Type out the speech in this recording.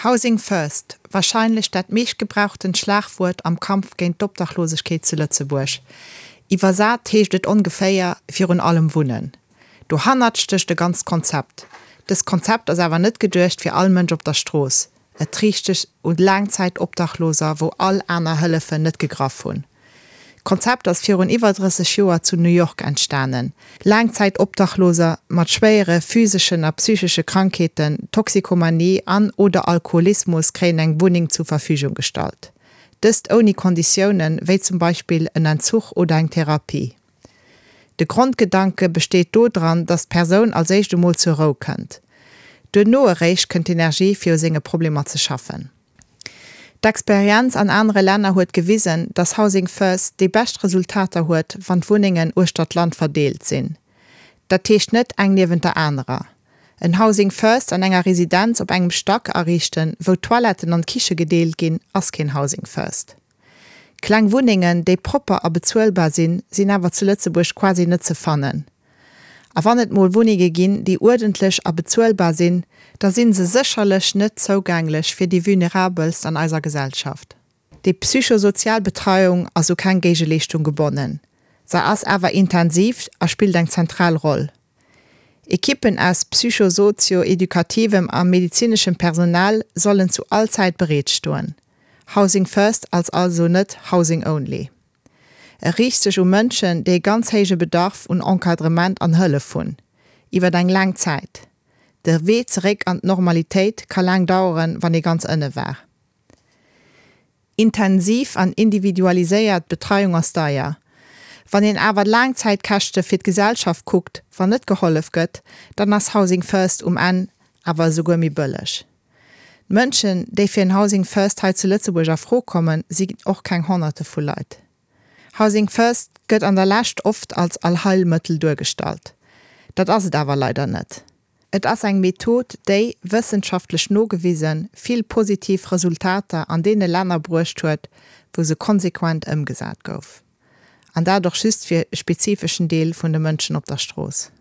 Housing first, wahrscheinlech dat meeschtgebrauchtent Schlagwuert am Kampf géint d'Obdachlosegkeet zu Lëtzebuerg. Iwwersat heescht et ongeféier, virun allem wunnen. Dohannert stécht e ganzt Konzept. Dëst Konzept ass awer net geduecht fir all Mënsch op der Strooss. Et riicht sech un Laangzäitobdachloser, wou all aner Hëllefen net gegraff hunn. D'Konzept ass virun iwwer 30 Joer zu New York entstanen. Laangzäitobdachloser mat schwéiere physeschen a psychesche Krankheeten, Toxikomanie an oder Alkoholismus kréien eng Wunneng zur Verfügung gestallt. Dëst ouni Konditiounen, wéi zum Beispill en Entzuch oder eng Therapie. De Grondgedanke besteet do dran, dass d'Persoun als éischt emol zur Rou kënnt. Duerno eréischt kënnt d'Energie fir u senge Problemer ze schaffen. D'Experienz an anere Länner huet gewisen, dass Housing First déi bescht Resultater huet, wann d'Wunnengen uechter d'Land verdeelt sinn. Dat heescht net eng niewent der anerer. En Housing First an enger Residenz op engem Stack ariichten, wou d'Toiletten an d'Kiche gedeelt ginn, ass keen Housing First. Kleng Wunnengen, déi propper a bezuelbar sinn, sinn awer zu Lëtzebuerg quasi net ze fannen. A wann et mol Wunnenge ginn, déi uerdentlech a bezuelbar sinn, da si se sécherlech net zougänglech fir déi Vulnerabelst an eiser Gesellschaft. Déi psychosozial Betreiung ass u keng Géigeleeschtung gebonnen, se ass awer intensiv a spillt eng zentral Roll. Ekippen aus psychosozio-edukativem a medezineschem Personal sollen zu all Zäit bereet stoen. Housing First ass also net Housing Only. E riicht sech u Mënschen, déi e ganz héije Bedarf un Encadrement an Hëllef hunn, iwwer eng laang Zäit. De Wee zeréck an d'Normalitéit ka laang daueren, wann ee ganz ënne war. Intensiv an individualiséiert Betreiung ass deier. Wann een awer d'Laangzäitkäschte fir d'Gesellschaft kuckt, wann net gehollef gëtt, dann ass Housing First um Enn awer esouguer méi bëlleg. D'Mënschen, déi fir en Housing First hei zu Lëtzebuerg a Fro kommen, sinn och keng Honnerte vu Leit. Housing First gëtt an der Lescht oft als Allheilmëttel duergestallt. Dat ass et awer leider net. Et ass eng Method, déi, wëssenschaftlech nogewisen, vill positiv Resultater an deene Länner bruecht huet, wou se konsequent ëmgesat gouf. An dat och just fir e spezifeschen Deel vun de Mënschen op der Strooss.